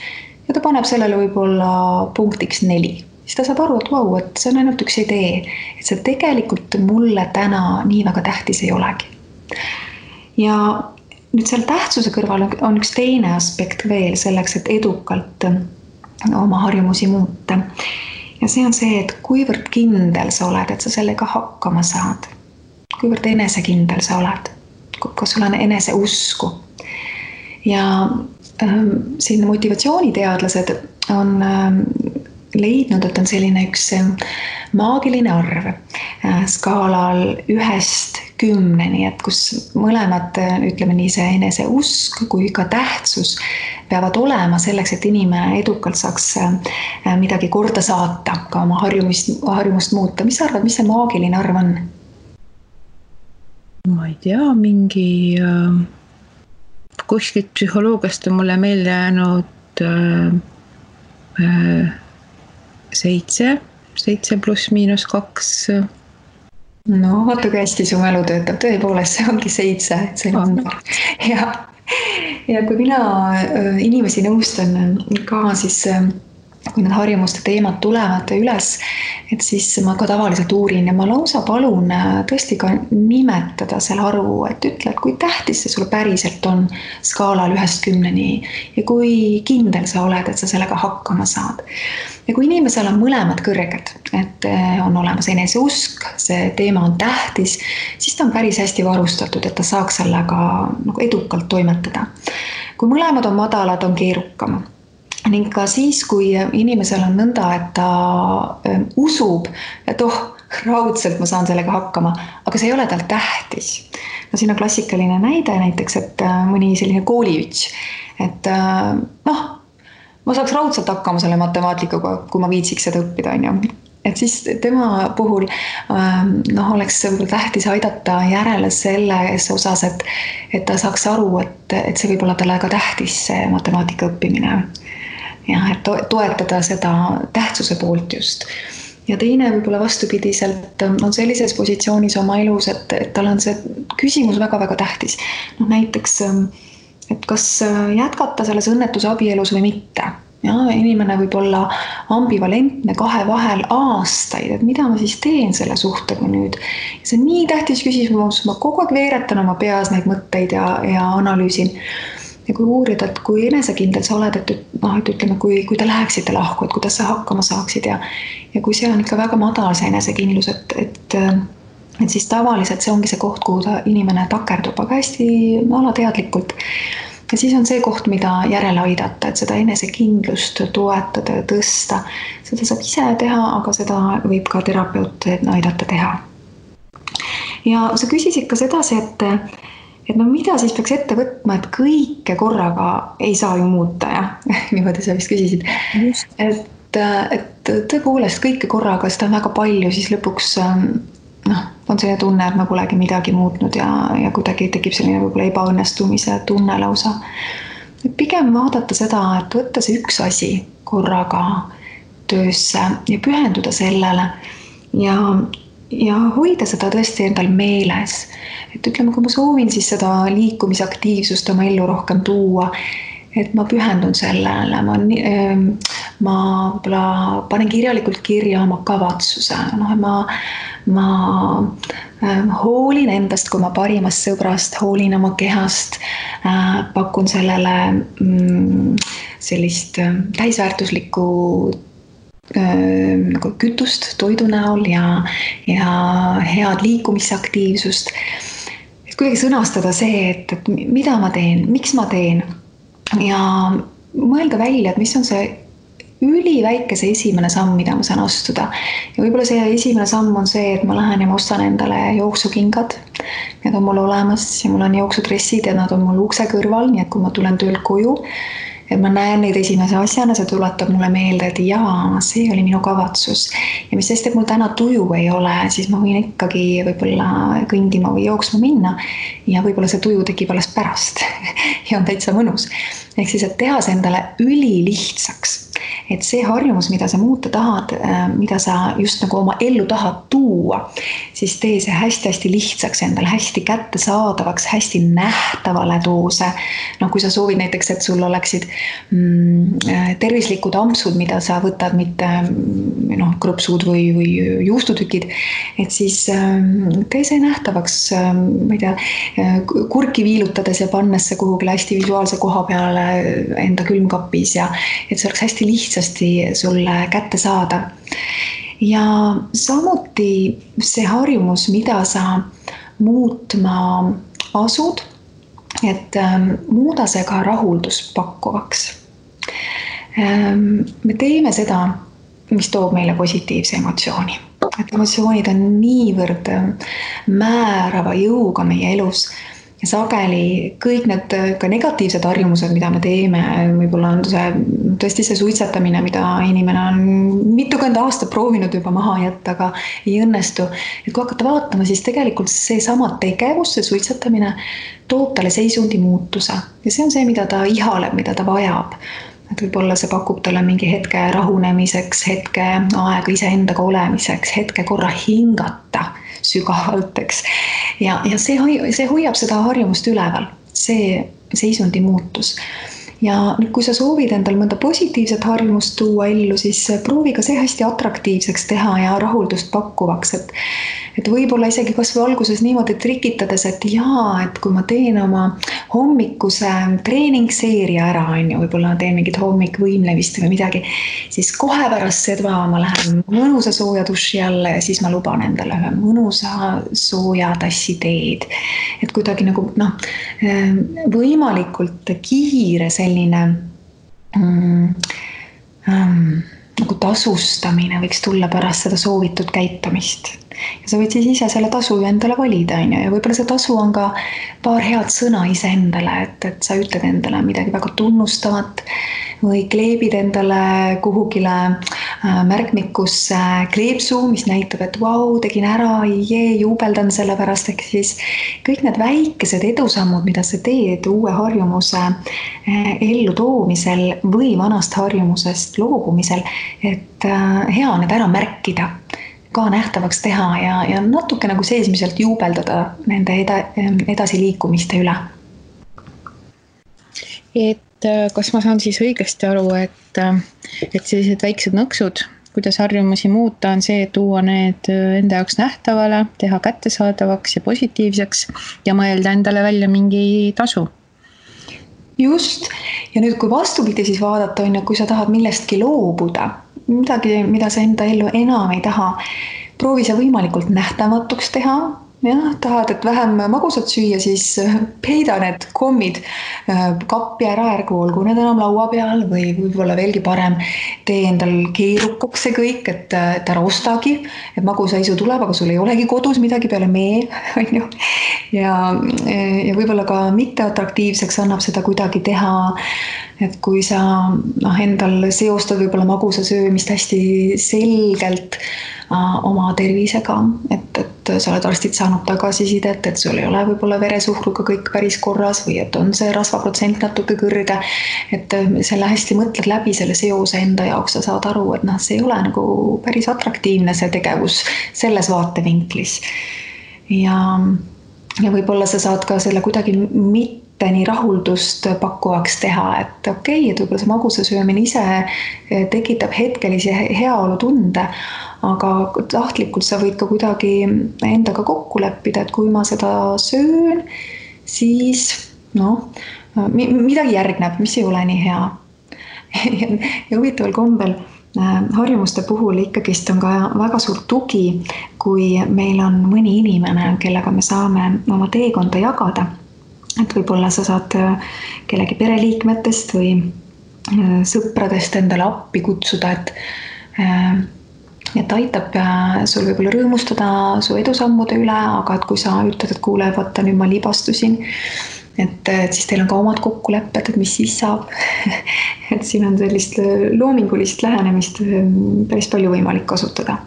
Ja ta paneb sellele võib-olla punktiks 4. Siis ta saab aru, et see on ainult üks idee, et see tegelikult mulle täna nii väga tähtis ei olegi. Ja nüüd seal tähtsuse kõrval on üks teine aspekt veel selleks, et edukalt oma harjumusi muuta. Ja see on see, et kuivõrd kindel sa oled, et sa sellega hakkama saad. Kuivõrd enesekindel sa oled, kui sul on eneseusku. Ja siin motivatsiooniteadlased on leidnud, et on selline üks maagiline arv skaalal 1-10, et kus mõlemad, ütleme nii, see eneseusk kui ka tähtsus peavad olema selleks, et inimene edukalt saaks midagi korda saata, ka oma harjumust muuta. Mis sa arvad, mis see maagiline arv on? Ma ei tea, mingi kuskilt psühholoogiast on mulle meelde jäänud 7 pluss miinus 2. No, vaata kui hästi su mälu töötab. Tõepoolest, see ongi 7. See on ja kui mina inimesi nõustan ka, siis kui need harjumuste teemad tulevad üles, et siis ma ka tavaliselt uurin ja ma lausa palun tõesti ka nimetada selle arvu, et ütle, et kui tähtis see sulle päriselt on skaalal 1-10 ja kui kindel sa oled, et sa sellega hakkama saad. Ja kui inimesel on mõlemad kõrged, et on olemas eneseusk, see teema on tähtis, siis ta on päris hästi varustatud, et ta saaks sellega edukalt toimetada. Kui mõlemad on madalad, on keerukam. Ning ka siis, kui inimesel on nõnda, et ta usub, et raudselt ma saan sellega hakkama, aga see ei ole tal tähtis. No siin on klassikaline näide näiteks, et mõni selline kooliüts, et ma saaks raudselt hakkama selle matemaatikaga, kui ma viitsiks seda õppida, on ju. Et siis tema puhul oleks tähtis aidata järele selles osas, et ta saaks aru, et see võib olla talle ka tähtis see matemaatika õppimine. Ja, et toetada seda tähtsuse poolt just. Ja teine võib-olla vastupidiselt on sellises positsioonis oma elus, et tal on see küsimus väga-väga tähtis. Näiteks, et kas jätkata selles õnnetuse abielus või mitte. Ja, inimene võib olla ambivalentne 2 vahel aastaid, et mida ma siis teen selle suhtega nüüd. Ja see on nii tähtis küsimus, ma kogu aeg veeretan oma peas neid mõtteid ja analüüsin. ja kui uurida, et kui enesekindel sa oled, et ütleme, kui te läheksite lahku, et kuidas sa hakkama saaksid ja kui see on ikka väga madal see enesekindlus, et siis tavaliselt see ongi see koht, kuhu inimene takerdub, aga hästi alateadlikult. Ja siis on see koht, mida järele aidata, et seda enesekindlust toetada ja tõsta. Seda saab ise teha, aga seda võib ka terapeut aidata teha. Ja sa küsisid ka sedasi, et no mida siis peaks ette võtma, et kõike korraga ei saa ju muuta, ja niimoodi sa vist küsisid. Just. Et tõepoolest kõike korraga, seda on väga palju, siis lõpuks on selline tunne, et ma polegi midagi muutnud ja kuidagi tekib selline võib-olla ebaõnnestumise tunne lausa. Et pigem vaadata seda, et võtta see üks asi korraga töösse ja pühenduda sellele ja hoida seda tõesti endal meeles. Et ütleme, kui ma soovin siis seda liikumisaktiivsust oma ellu rohkem tuua, et ma pühendun sellele, ma panen kirjalikult kirja oma kavatsuse, ma hoolin endast kui oma parimast sõbrast, hoolin oma kehast, pakun sellele sellist täisväärtuslikku kütust toidu näol ja head liikumisaktiivsust. Et kuidagi sõnastada see, et mida ma teen, miks ma teen ja mõelda välja, et mis on see üliväikese esimene samm, mida ma saan astuda. Ja võib-olla see esimene samm on see, et ma lähen ja ma ostan endale jooksukingad. Need on mul olemas ja mul on jooksudressid ja nad on mul ukse kõrval, nii et kui ma tulen töölt koju, et ma näen neid esimese asjana, see tuletab mulle meelde, et jaa, see oli minu kavatsus. Ja mis sest, et mul täna tuju ei ole, siis ma võin ikkagi võib-olla kõndima või jooksma minna ja võib-olla see tuju tekib alles pärast ja on täitsa mõnus. Ehk siis, et teha see endale ülilihtsaks. Et see harjumus, mida sa muuta tahad, mida sa just nagu oma ellu tahad tuua, siis tee see hästi-hästi lihtsaks endale, hästi kättesaadavaks, hästi nähtavale too see. Kui sa soovid näiteks, et sul oleksid tervislikud ampsud, mida sa võtad mitte krõpsud või juustutükid, et siis tee see nähtavaks, ma ei tea, kurki viilutades ja pannes see kuhugi hästi visuaalse koha peale enda külmkapis ja et see oleks hästi lihtsasti sulle kätte saada. Ja samuti see harjumus, mida sa muutma asud, et muuda see ka rahuldust pakkuvaks. Me teeme seda, mis toob meile positiivse emotsiooni. Et emotsioonid on niivõrd määrava jõuga meie elus. Ja sageli kõik need ka negatiivsed harjumused, mida me teeme, võib-olla on tõesti see suitsetamine, mida inimene on mitukümmend aastat proovinud juba maha jätta, aga ei õnnestu. Et kui hakata vaatama, siis tegelikult see sama tegevus, see suitsetamine toob talle seisundi muutuse. Ja see on see, mida ta ihaleb, mida ta vajab. Et võib-olla see pakub talle mingi hetke rahunemiseks, hetke aega iseendaga olemiseks, hetke korra hingata sügavalt, eks. Ja see hoiab seda harjumust üleval, see seisundi muutus. Ja kui sa soovid endal mõnda positiivset harjumust tuua ellu, siis proovi ka see hästi atraktiivseks teha ja rahuldust pakkuvaks. Et võib-olla isegi kas või alguses niimoodi trikitades, et et kui ma teen oma hommikuse treeningseeria ära, võib-olla teen mingit hommikvõimlemist või midagi, siis kohe pärast seda ma lähen mõnusa sooja duši alla ja siis ma luban endale ühe mõnusa sooja tassi teed. Et kuidagi nagu võimalikult kiire selline nagu tasustamine võiks tulla pärast seda soovitud käitumist. Ja sa võid siis ise selle tasu endale valida, ja võib-olla see tasu on ka paar head sõna ise endale, et sa ütled endale midagi väga tunnustavat või kleebid endale kuhugile märkmikusse kleepsu, mis näitab, et vau, tegin ära, juubeldan selle pärast, ehk siis kõik need väikesed edusammud, mida sa teed uue harjumuse ellu toomisel või vanast harjumusest loobumisel, et hea on need ära märkida, ka nähtavaks teha ja natuke nagu seesmiselt juubeldada nende edasiliikumiste üle. Et kas ma saan siis õigesti aru, et sellised väiksed nõksud, kuidas harjumusi muuta, on see, et tuua need enda jaoks nähtavale, teha kättesaadavaks ja positiivseks ja mõelda endale välja mingi tasu? Just. Ja nüüd, kui vastupidi siis vaadata, on ju, kui sa tahad millestki loobuda, midagi, mida sa enda ellu enam ei taha, proovi sa võimalikult nähtamatuks teha. Jah, tahad, et vähem magusat süüa, siis peida need kommid kappi ära, ärgu olgu need enam laua peal või võib-olla veelgi parem, tee endal keerukaks see kõik, et ära ostagi, et magusaisu tuleb, aga sul ei olegi kodus midagi peale mee, on ju. Ja võib-olla ka mitteatraktiivseks annab seda kuidagi teha, et kui sa endal seostad võib-olla magusa söömist hästi selgelt oma tervisega, et sa oled arstid saanud tagasisidet, et sul ei ole võib-olla veresuhkruga kõik päris korras või et on see rasvaprotsent natuke kõrge, et selle hästi mõtled läbi selle seose enda jaoks, sa saad aru, et see ei ole nagu päris atraktiivne see tegevus selles vaatevinklis. Ja võib-olla sa saad ka selle kuidagi mitte nii rahuldust pakkuvaks teha, et okei, et võib-olla see magusa söömine ise tekitab hetkelisi heaolu tunde, aga tahtlikult sa võid ka kuidagi endaga kokku leppida, et kui ma seda söön, siis midagi järgneb, mis ei ole nii hea. Ja huvitaval kombel harjumuste puhul ikkagist on ka väga suur tugi, kui meil on mõni inimene, kellega me saame oma teekonda jagada. Et võib-olla sa saad kellegi pereliikmetest või sõpradest endale appi kutsuda, et aitab sul võib-olla rõõmustada su edusammude üle, aga et kui sa ütled, et kuule, vaata, nüüd ma libastusin, et siis teil on ka omad kokkulepped, et mis siis saab. Et siin on sellist loomingulist lähenemist päris palju võimalik kasutada.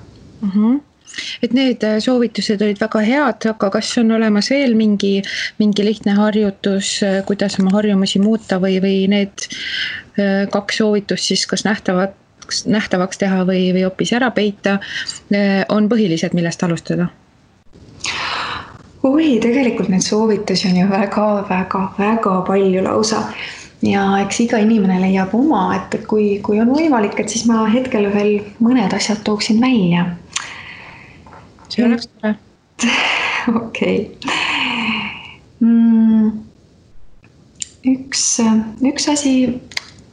Et need soovitused olid väga head, aga kas on olemas veel mingi lihtne harjutus, kuidas oma harjumusi muuta või need 2 soovitust siis kas nähtavaks teha või hoopis ära peita, on põhilised, millest alustada? Tegelikult neid soovitusi on ju väga palju lausa. Ja eks iga inimene leiab oma, et kui on võimalik, et siis ma hetkel veel mõned asjad tooksin välja. See oleks tore. Okei. Üks asi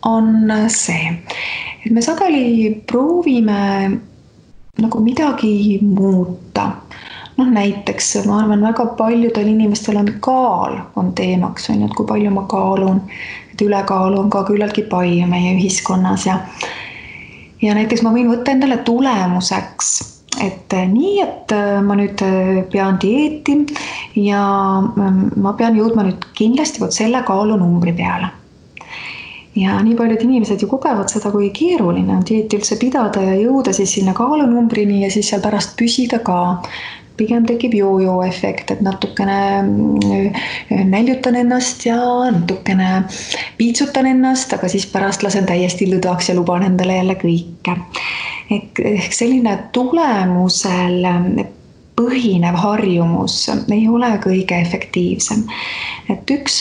on see, et me sageli proovime nagu midagi muuta. Näiteks ma arvan, väga paljudel inimestel on kaal on teemaks, on, et kui palju ma kaalun, et ülekaalu on ka küllaltki palju meie ühiskonnas ja näiteks ma võin võtta endale tulemuseks, et nii, et ma nüüd pean dieeti ja ma pean jõudma nüüd kindlasti selle kaalunumbri peale. Ja nii paljud inimesed ju kogevad seda, kui keeruline on dieeti üldse pidada ja jõuda siis sinna kaalunumbrini ja siis seal pärast püsida ka. Pigem tekib jojo efekt, et natukene näljutan ennast ja natukene piitsutan ennast, aga siis pärast lasen täiesti lõdvaks ja luban endale jälle kõike. Ehk selline tulemusel põhinev harjumus ei ole kõige efektiivsem. Et üks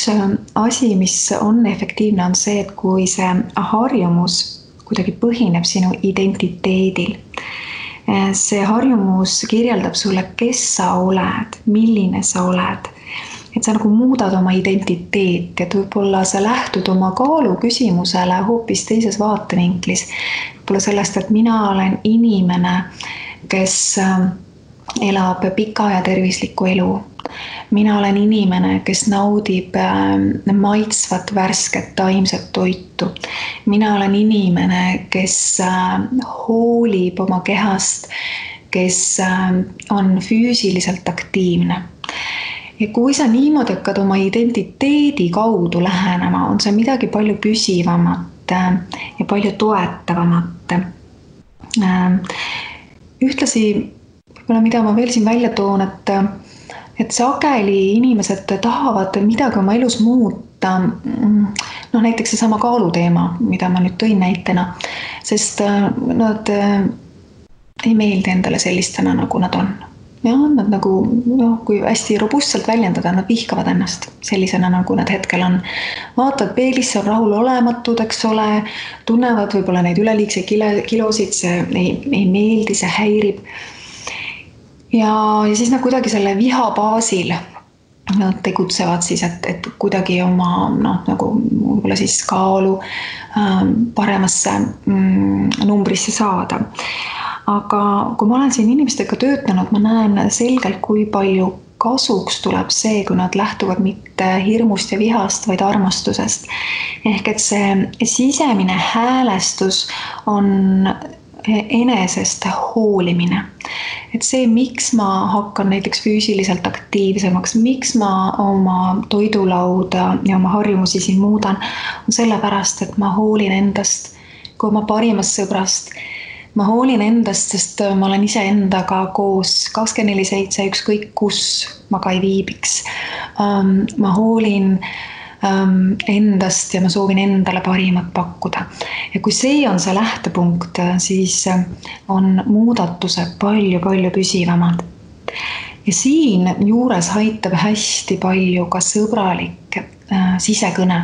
asi, mis on efektiivne, on see, et kui see harjumus kuidagi põhineb sinu identiteedil, see harjumus kirjeldab sulle, kes sa oled, milline sa oled. Et sa nagu muudad oma identiteeti, et võib-olla sa lähtud oma kaalu küsimusele hoopis teises vaatevinklis. Võib-olla sellest, et mina olen inimene, kes elab pika ja tervislikku elu. Mina olen inimene, kes naudib maitsvat, värsket, taimset toitu. Mina olen inimene, kes hoolib oma kehast, kes on füüsiliselt aktiivne. Ja kui sa niimoodi hakkad oma identiteedi kaudu lähenema, on see midagi palju püsivamat ja palju toetavamat. Ühtlasi, mida ma veel siin välja toon, et sageli inimesed tahavad midagi oma elus muuta, näiteks see sama kaaluteema, mida ma nüüd tõin näitena, sest nad ei meeldi endale sellistena, nagu nad on. Ja nad nagu, kui hästi robustselt väljendada, nad vihkavad ennast sellisena, nagu nad hetkel on. Vaatavad peelisse, on rahul olematud, eks ole, tunnevad võib-olla neid üleliigseid kilosid, see ei meeldi, see häirib. Ja siis nad kuidagi selle viha baasil nad tegutsevad siis, et kuidagi oma nagu võib-olla siis kaalu paremasse numbrisse saada. Aga kui ma olen siin inimestega töötanud, ma näen selgelt, kui palju kasuks tuleb see, kui nad lähtuvad mitte hirmust ja vihast, vaid armastusest. Ehk et see sisemine häälestus on enesest hoolimine. Et see, miks ma hakkan näiteks füüsiliselt aktiivsemaks, miks ma oma toidulauda ja oma harjumusi siin muudan, on sellepärast, et ma hoolin endast kui oma parimast sõbrast. Ma hoolin endast, sest ma olen ise endaga koos 24/7, ükskõik kus ma ka ei viibiks. Ma hoolin endast ja ma soovin endale parimat pakkuda. Ja kui see on see lähtepunkt, siis on muudatused palju püsivamad. Ja siin juures aitab hästi palju ka sõbralik sisekõne.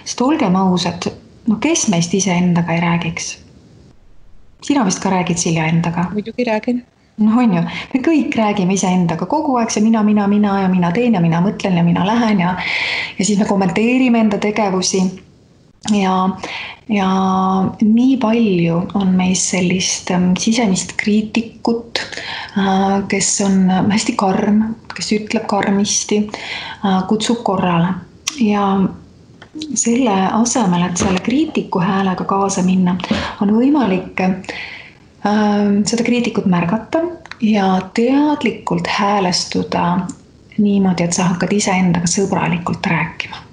Sest olgem ausad, kes meist ise endaga ei räägiks? Sina vist ka räägid, Silja, endaga? Muidugi räägin. On ju, me kõik räägime ise endaga kogu aeg, see mina ja mina teen ja mina mõtlen ja mina lähen ja siis me kommenteerime enda tegevusi ja nii palju on meis sellist sisemist kriitikut, kes on hästi karm, kes ütleb karmisti, kutsub korrale ja selle asemel, et selle kriitiku häälega kaasa minna, on võimalik seda kriitikut märgata ja teadlikult häälestuda niimoodi, et sa hakkad iseendaga sõbralikult rääkima.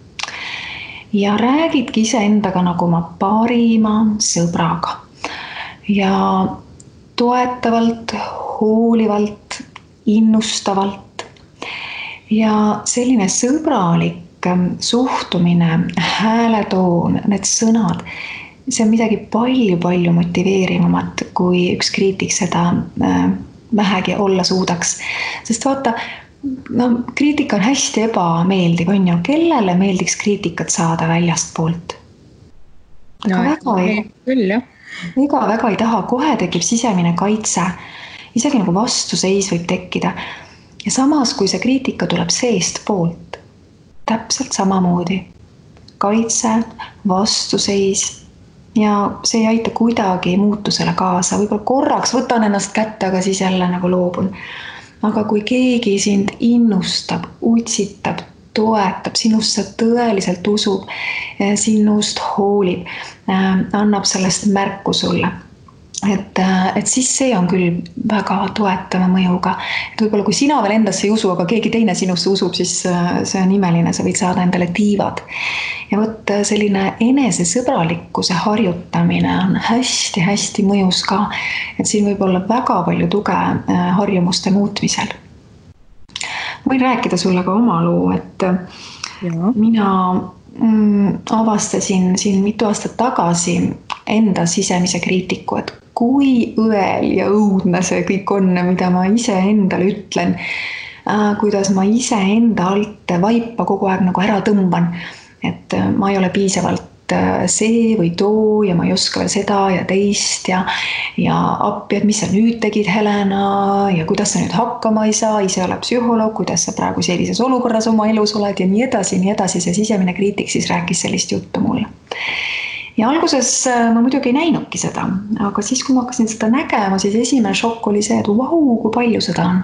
Ja räägidki iseendaga nagu oma parima sõbraga. Ja toetavalt, hoolivalt, innustavalt. Ja selline sõbralik suhtumine, hääletoon, need sõnad, see on midagi palju motiveerivamat, kui üks kriitik seda vähegi olla suudaks. Sest vaata, kriitika on hästi ebameeldiv, on ju, kellele meeldiks kriitikat saada väljast poolt? Väga ei taha, kohe tekib sisemine kaitse, isegi nagu vastuseis võib tekkida. Ja samas, kui see kriitika tuleb seest poolt, täpselt samamoodi. Kaitse, vastuseis ja see ei aita kuidagi muutusele kaasa. Võib-olla korraks võtan ennast kätte, aga siis jälle nagu loobun. Aga kui keegi sind innustab, utsitab, toetab, sinusse tõeliselt usub, sinust hoolib, annab sellest märku sulle. Et siis see on küll väga toetava mõjuga. Et võib-olla kui sina veel endasse ei usu, aga keegi teine sinusse usub, siis see on imeline, sa võid saada endale tiivad. Ja võt selline enesesõbralikkuse harjutamine on hästi mõjus ka, et siin võib olla väga palju tuge harjumuste muutmisel. Võin rääkida sulle ka oma loo, et mina avastasin siin mitu aastat tagasi enda sisemise kriitiku, et kui õel ja õudne see kõik on, mida ma ise endale ütlen, kuidas ma ise enda alt vaipa kogu aeg nagu ära tõmban, et ma ei ole piisavalt see või too ja ma ei oska veel seda ja teist ja appi, et mis sa nüüd tegid, Helena, ja kuidas sa nüüd hakkama ei saa, ise ole psühholoog, kuidas sa praegu sellises olukorras oma elus oled ja nii edasi, see sisemine kriitik siis rääkis sellist juttu mulle. Ja alguses ma muidugi ei näinudki seda, aga siis, kui ma hakkasin seda nägema, siis esimene šokk oli see, et kui palju seda on.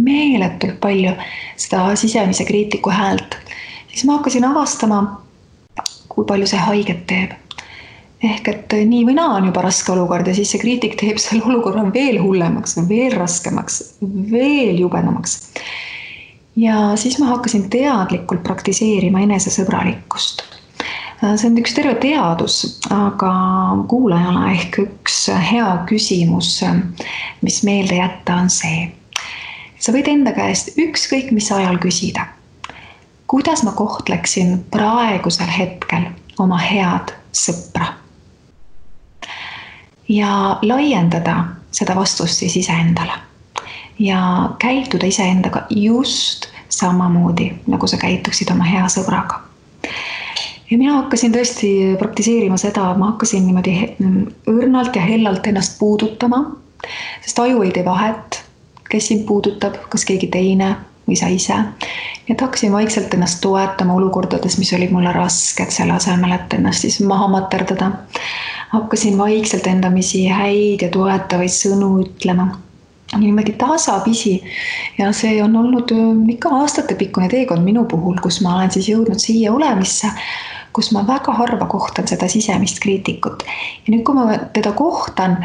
Meeletult palju seda sisemise kriitiku häält. Siis ma hakkasin avastama, kui palju see haiget teeb. Ehk et nii või naa on juba raske olukord ja siis see kriitik teeb selle olukorra veel hullemaks, veel raskemaks, veel jubedamaks. Ja siis ma hakkasin teadlikult praktiseerima enesesõbralikkust. See on üks terve teadus, aga kuulajale ehk üks hea küsimus, mis meelde jätta, on see. Sa võid enda käest ükskõik mis ajal küsida. Kuidas ma kohtleksin praegusel hetkel oma head sõpra? Ja laiendada seda vastust siis iseendale. Ja käituda iseendaga just samamoodi, nagu sa käituksid oma hea sõbraga. Ja mina hakkasin tõesti praktiseerima seda, ma hakkasin niimoodi õrnalt ja hellalt ennast puudutama, sest aju ei tee vahet, kes sind puudutab, kas keegi teine või sa ise. Et hakkasin vaikselt ennast toetama olukordades, mis olid mulle rasked, selle asemel, et ennast siis maha materdada. Hakkasin vaikselt endamisi häid ja toetavaid sõnu ütlema. Niimoodi tasapisi ja see on olnud ikka aastatepikkune teekond minu puhul, kus ma olen siis jõudnud siia olemisse, kus ma väga harva kohtan seda sisemist kriitikut. Ja nüüd, kui ma teda kohtan,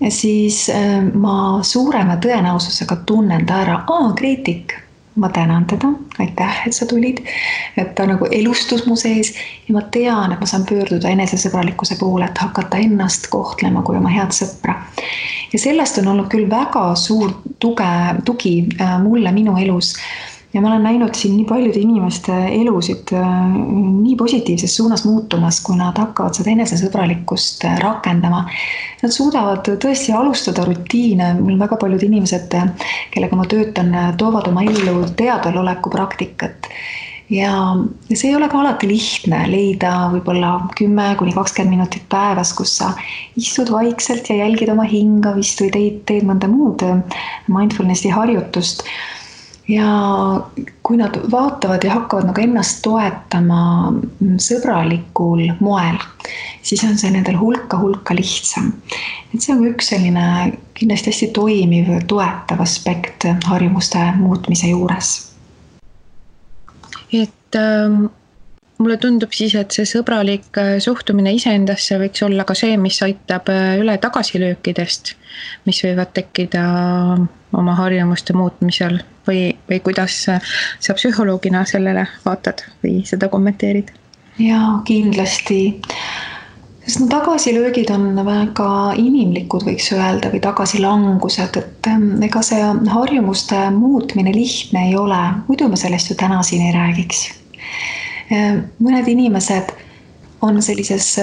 siis ma suurema tõenäosusega tunnen ta ära. Kriitik, ma tänan teda, aitäh, et sa tulid, et ta nagu elustus mu sees ja ma tean, et ma saan pöörduda enesesõbralikkuse poole, et hakata ennast kohtlema kui oma head sõpra. Ja sellest on olnud küll väga suur tugi mulle minu elus. Ja ma olen näinud siin nii paljude inimeste elusid nii positiivses suunas muutumas, kui nad hakkavad seda enesesõbralikkust rakendama. Nad suudavad tõesti alustada rutiine. Mul väga paljud inimesed, kellega ma töötan, toovad oma ellu teadvaloleku praktikat. Ja see ei ole ka alati lihtne leida võib-olla 10–20 minutit päevas, kus sa istud vaikselt ja jälgid oma hingavist või teed mõnda muud mindfulnessi harjutust. Ja kui nad vaatavad ja hakkavad nagu ennast toetama sõbralikul moel, siis on see nendel hulka lihtsam. Et see on üks selline kindlasti hästi toimiv toetav aspekt harjumuste muutmise juures. Et mulle tundub siis, et see sõbralik suhtumine iseendasse võiks olla ka see, mis aitab üle tagasilöökidest, mis võivad tekkida oma harjumuste muutmisel või kuidas sa psühholoogina sellele vaatad või seda kommenteerid? Jaa, kindlasti. Sest tagasilöögid on väga inimlikud, võiks öelda, või tagasilangused, et ega see harjumuste muutmine lihtne ei ole, muidu me sellest ju täna siin ei räägiks. Mõned inimesed on sellises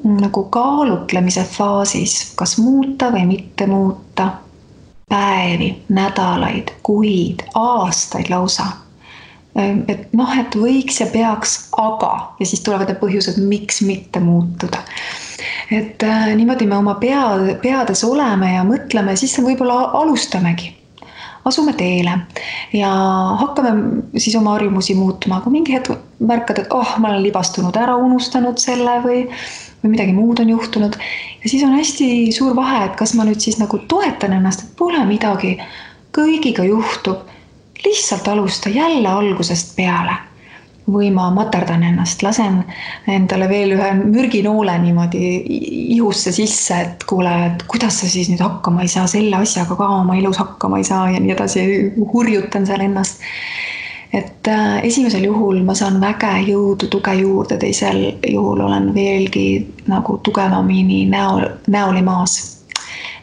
nagu kaalutlemise faasis, kas muuta või mitte muuta, päevi, nädalaid, kuid, aastaid lausa. Et võiks ja peaks, aga, ja siis tulevad need põhjused, miks mitte muutuda. Et niimoodi me oma peades oleme ja mõtleme, siis võib-olla alustamegi. Asume teele ja hakkame siis oma harjumusi muutma, aga mingi hetk märkad, et ma olen libastunud ära, unustanud selle või midagi muud on juhtunud. Ja siis on hästi suur vahe, et kas ma nüüd siis nagu toetan ennast, et pole midagi, kõigiga juhtub, lihtsalt alusta jälle algusest peale. Või ma materdan ennast, lasen endale veel ühe mürginoole niimoodi ihusse sisse, et kuule, et kuidas sa siis nüüd hakkama ei saa, selle asjaga ka oma elus hakkama ei saa ja nii edasi, hurjutan seal ennast. Et esimesel juhul ma saan väge jõudu, tuge juurde, teisel juhul olen veelgi nagu tugevamini näoli maas.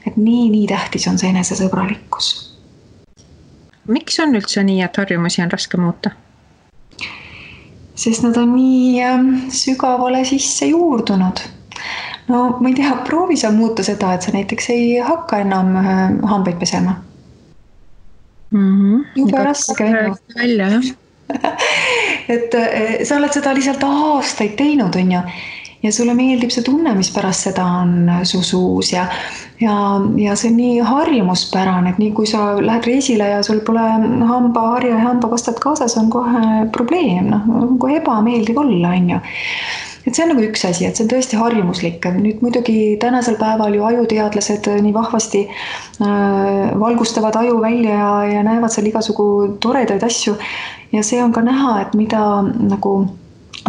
Et nii tähtis on see enesesõbralikkus. Miks on üldse nii, et harjumusi on raske muuta? Sest nad on nii sügavale sisse juurdunud. No ma ei tea, proovi sa muuta seda, et sa näiteks ei hakka enam hambaid pesema. Juba raske. Välja, jah. Et sa oled seda lihtsalt aastaid teinud, on ju. Ja sulle meeldib see tunne, mis pärast seda on su suus ja see on nii harjumuspärane, et nii kui sa lähed reisile ja sul pole hambaharja ja hambapastat kaasas, on kohe probleem, kohe ebameeldiv olla, on ju. Et see on nagu üks asi, et see on tõesti harjumuslik. Nüüd muidugi tänasel päeval ju ajuteadlased nii vahvasti valgustavad aju välja ja näevad seal igasugu toredaid asju ja see on ka näha, et mida nagu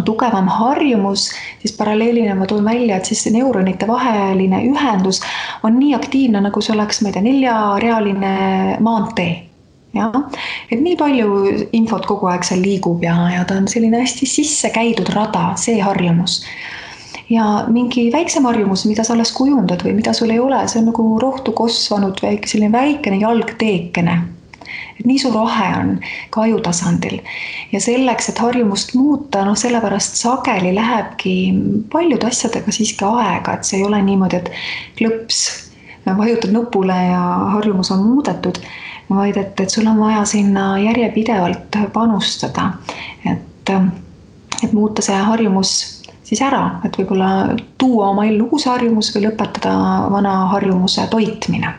tugevam harjumus, siis paralleelina ma toon välja, et siis neuronite vaheline ühendus on nii aktiivne, nagu see oleks, ma ei tea, 4-realine maantee. Ja? Et nii palju infot kogu aeg seal liigub ja ta on selline hästi sisse käidud rada, see harjumus. Ja mingi väiksem harjumus, mida sa alles kujundad või mida sul ei ole, see on nagu rohtu kosvanud selline väikene jalgteekene. Et nii suur vahe on ka ajutasandil. Ja selleks, et harjumust muuta, sellepärast sageli lähebki paljude asjadega siiski aega, et see ei ole niimoodi, et klõps, vajutad nupule ja harjumus on muudetud, vaid et sul on vaja sinna järjepidevalt panustada, et muuta see harjumus siis ära, et võib-olla tuua oma ellu uus harjumus või lõpetada vana harjumuse toitmine.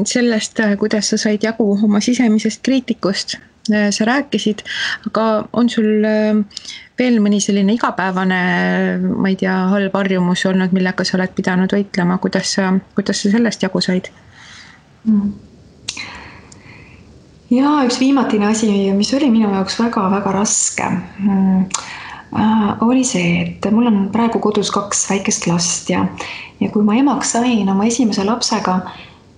Sellest, kuidas sa said jagu oma sisemisest kriitikust, sa rääkisid, aga on sul veel mõni selline igapäevane, ma ei tea, halb harjumus olnud, millega sa oled pidanud võitlema, kuidas sa sellest jagu said? Ja üks viimatine asi, mis oli minu jaoks väga-väga raske, oli see, et mul on praegu kodus 2 väikest last ja kui ma emaks sain oma esimese lapsega,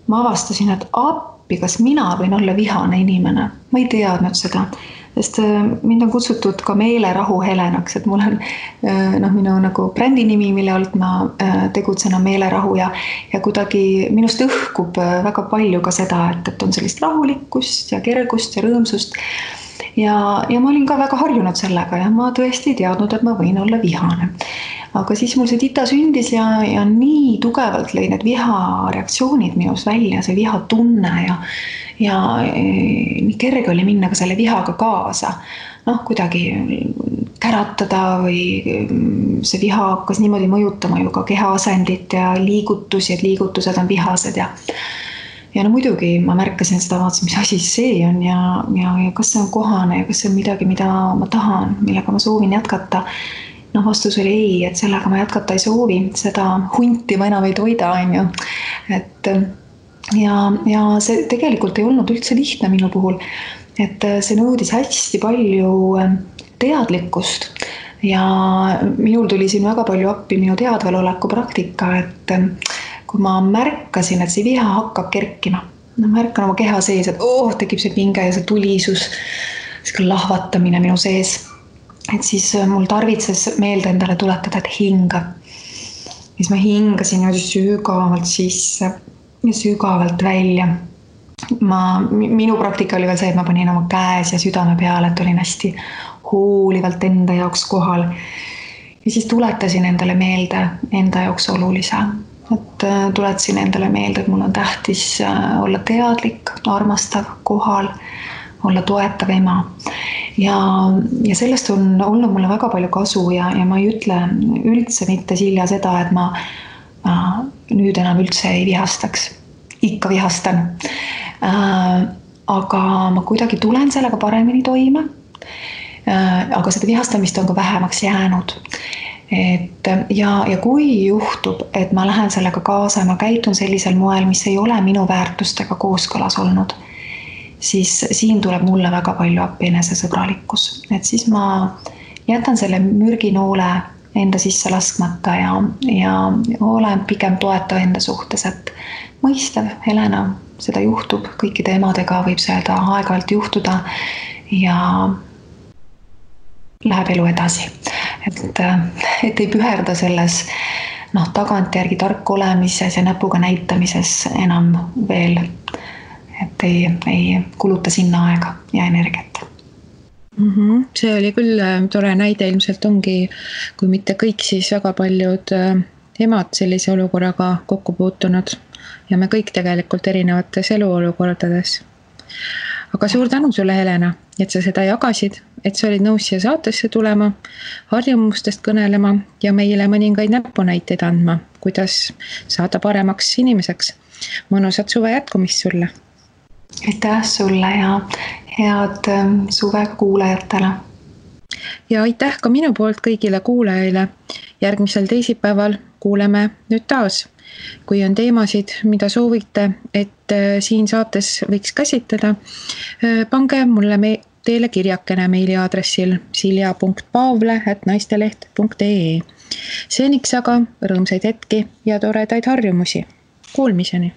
ma avastasin, et appi, kas mina võin olla vihane inimene. Ma ei teadnud seda, sest mind on kutsutud ka meelerahu Helenaks, et mul on minu nagu brändi nimi, mille alt ma tegutsen on meelerahu ja kuidagi minust õhkub väga palju ka seda, et on sellist rahulikkust ja kergust ja rõõmsust. Ja ma olin ka väga harjunud sellega ja ma tõesti ei teadnud, et ma võin olla vihane. Aga siis mul see tita sündis ja nii tugevalt lõi need vihareaktsioonid minus välja, see vihatunne ja nii kerge oli minna ka selle vihaga kaasa. Kuidagi käratada või see viha hakkas niimoodi mõjutama ju ka kehaasendit ja liigutusi, et liigutused on vihased ja muidugi ma märkasin seda, vaatasin, mis asi see on ja kas see on kohane ja kas see on midagi, mida ma tahan, millega ma soovin jätkata. Vastus oli ei, et sellega ma jätkata ei soovi, seda hunti ma enam ei toida, on ju. Ja see tegelikult ei olnud üldse lihtne minu puhul, et see nõudis hästi palju teadlikkust ja minul tuli siin väga palju appi minu teadvaloleku praktika, et kui ma märkasin, et see viha hakkab kerkima, märkan oma keha sees, et tekib see pinge ja see tulisus, see lahvatamine minu sees. Et siis mul tarvitses meelde endale tuletada, et hinga. Siis ma hingasin sügavalt sisse ja sügavalt välja. Minu praktika oli veel see, et ma panin oma käes ja südame peale, et olin hästi hoolivalt enda jaoks kohal. Ja siis tuletasin endale meelde enda jaoks olulise. Et tuletasin endale meelde, et mul on tähtis olla teadlik, armastav, kohal, olla toetav ema. Ja sellest on olnud mulle väga palju kasu ja ma ei ütle üldse mitte Silja seda, et ma nüüd enam üldse ei vihastaks. Ikka vihastan. Aga ma kuidagi tulen sellega paremini toime. Aga seda vihastamist on ka vähemaks jäänud. Ja kui juhtub, et ma lähen sellega kaasa ja ma käitun sellisel moel, mis ei ole minu väärtustega kooskõlas olnud, siis siin tuleb mulle väga palju appi enesesõbralikkus. Et siis ma jätan selle mürginoole enda sisse laskmata ja olen pigem toetav enda suhtes, et mõistav, Helena, seda juhtub, kõikide emadega võib seda aeg-ajalt juhtuda ja läheb elu edasi. Et ei püherda selles tagantjärgi tark olemises ja näpuga näitamises enam veel, et ei kuluta sinna aega ja energiat. See oli küll tore näide, ilmselt ongi, kui mitte kõik, siis väga paljud emad sellise olukorraga kokku puutunud ja me kõik tegelikult erinevates eluolukordades. Aga suur tänu sulle, Helena, et sa seda jagasid, et sa olid nõus siia saatesse tulema, harjumustest kõnelema ja meile mõningaid näpunäiteid andma, kuidas saada paremaks inimeseks. Mõnusat suve jätkumist sulle! Aitäh sulle ja head suve kuulajatele. Ja aitäh ka minu poolt kõigile kuulajaile. Järgmisel teisipäeval kuuleme nüüd taas. Kui on teemasid, mida soovite, et siin saates võiks käsitleda, pange mulle teile kirjakene meiliaadressil silja.paavle@naisteleht.ee. Seniks aga rõõmsaid hetki ja toredaid harjumusi. Kuulmiseni!